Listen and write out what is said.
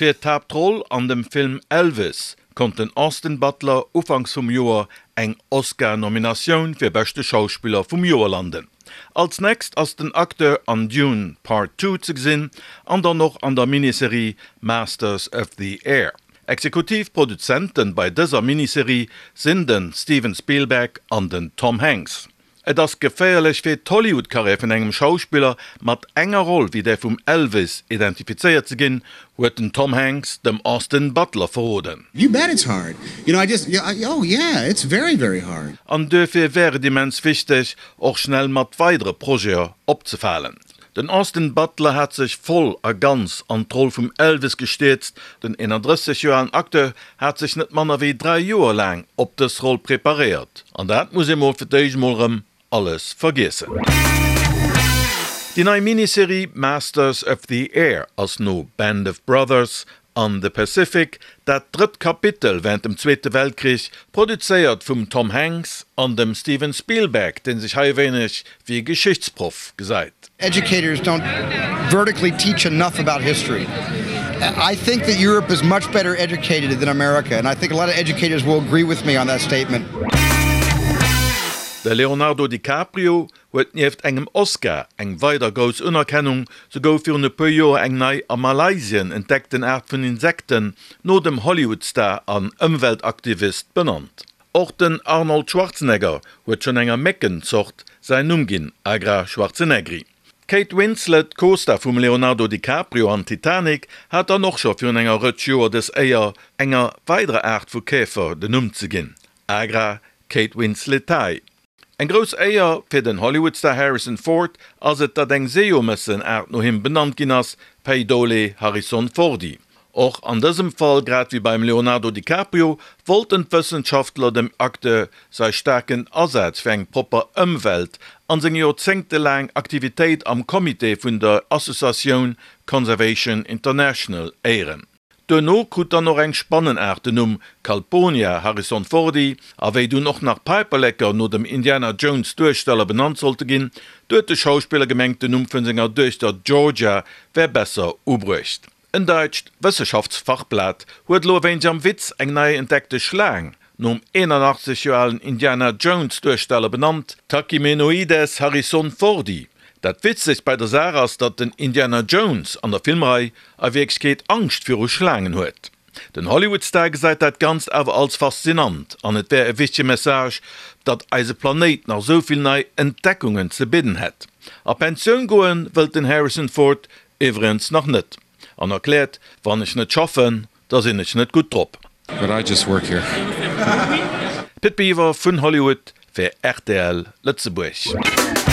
Fir d'Haaptroll an dem Film Elvis konnt den Austin Butler ufanks vum Joer eng Oscar-Nominatioun fir beschte Schauspiller vum Joer landen. Als nächst ass den Acteur an Dune Part Two ze gesinn an dann och an der Miniserie Masters of the Air. Exekutiv Produzenten bei dëser Miniserie sinn den Steven Spielberg an den Tom Hanks. Et ass geféierlech fir d'Hollywood-Karriär vun engem Schauspiller, mat enger Roll wéi där vum Elvis identifizéiert ze ginn, huet den Tom Hanks dem Austin Butler verroden. You bet it's hard. You know, I just, oh yeah, it's very, very hard. An duerfir wär et immens wichteg, och schnell mat weidere Projete opzefalen. Den Austin Butler hat sech voll a ganz an d'Roll vum Elvis gestierzt. Den 31 Joer alen Acteur hat sech net manner wéi 3 Joer laang op dës Roll preparéiert. An dat muss ee mol fir d'éischt mol rëm alles vergiessen. Déi nei Miniserie Masters of the Air ass no Band of Brothers an The Pacific, dat drëtt Kapitel wärend dem Zweete Weltkrich, produzéiert vum Tom Hanks an dem Steven Spielberg, dee sech hei e wéineg wéi e Geschichtsproff gesäit. Educators don't vertically teach enough about history. I think that Europe is much better educated than America and I think a lot of educators will agree with me on that statement. De Leonardo DiCaprio huet nieft engem Oscar eng weider grouss Unerkennung, Sou gouf virun e puer Joer eng nei a Malaysien entdeckten Aart vun Insekten no dem Hollywood-Star an Ëmweltaktivist benannt. Och den Arnold Schwarzenegger huet schonn enger Méckenzort säin Numm ginn, Agra schwarzeneggeri. D'Kate Winslet, Co-Star vum Leonardo DiCaprio an Titanic, hat dann och scho virun enger Rëtsch Joer dës Éier, enger weiderer Aart vu Käfer den Numm ze ginn, Agra katewinsletae. Eng grouss Éier fir den Hollywood-Star Harrison Ford ass et, datt eng Seejomëssen-Aart no him benannt ginn ass, Pheidole harrisonfordi. Och an dësem Fall, grad wéi beim Leonardo DiCaprio, wollten d'Wëssenschaftler dem Acteur säi staarken Asaz fir eng propper Ëmwelt an seng joerzéngtelaang Aktivitéit am Comité vun der Associatioun Conservation International éieren. Duerno krut dann och eng Spannenaart den Numm Calponia harrisonfordi, a wéi dunn och nach Päiperleker no dem Indiana Jones Duersteller benannt sollte ginn, du huet de Schauspiller gemengt den Numm vun senger Duechter Georgia wär besser ubruecht. En daitscht Wësseschaftsfachblat huet elo e wéineg am Witz eng nei entdeckte Schlaang nom 81 Joer alen Indiana Jones Duersteller benannt, Tachymenoides harrisonfordi. Dat Witzegst bei der Saach ass, datt den Indiana Jones an der Filmrei a Wierklechkeet Angscht viru Schlaangen huet. Den Hollywood-Star gesäit dat Ganzt awer als faszinant an et wär e wichtege Message, datt eise Planéit nach esou vill nei Entdeckungen ze bidden hätt. A Pensioun goen wëllt den Harrison Ford iwwregens nach net an erkläert, Wann ech net schaffen, Da sinn ech net gutt drop. But I just work here. Pit Biwer vun Hollywood fir rtl Lëtzebuerg.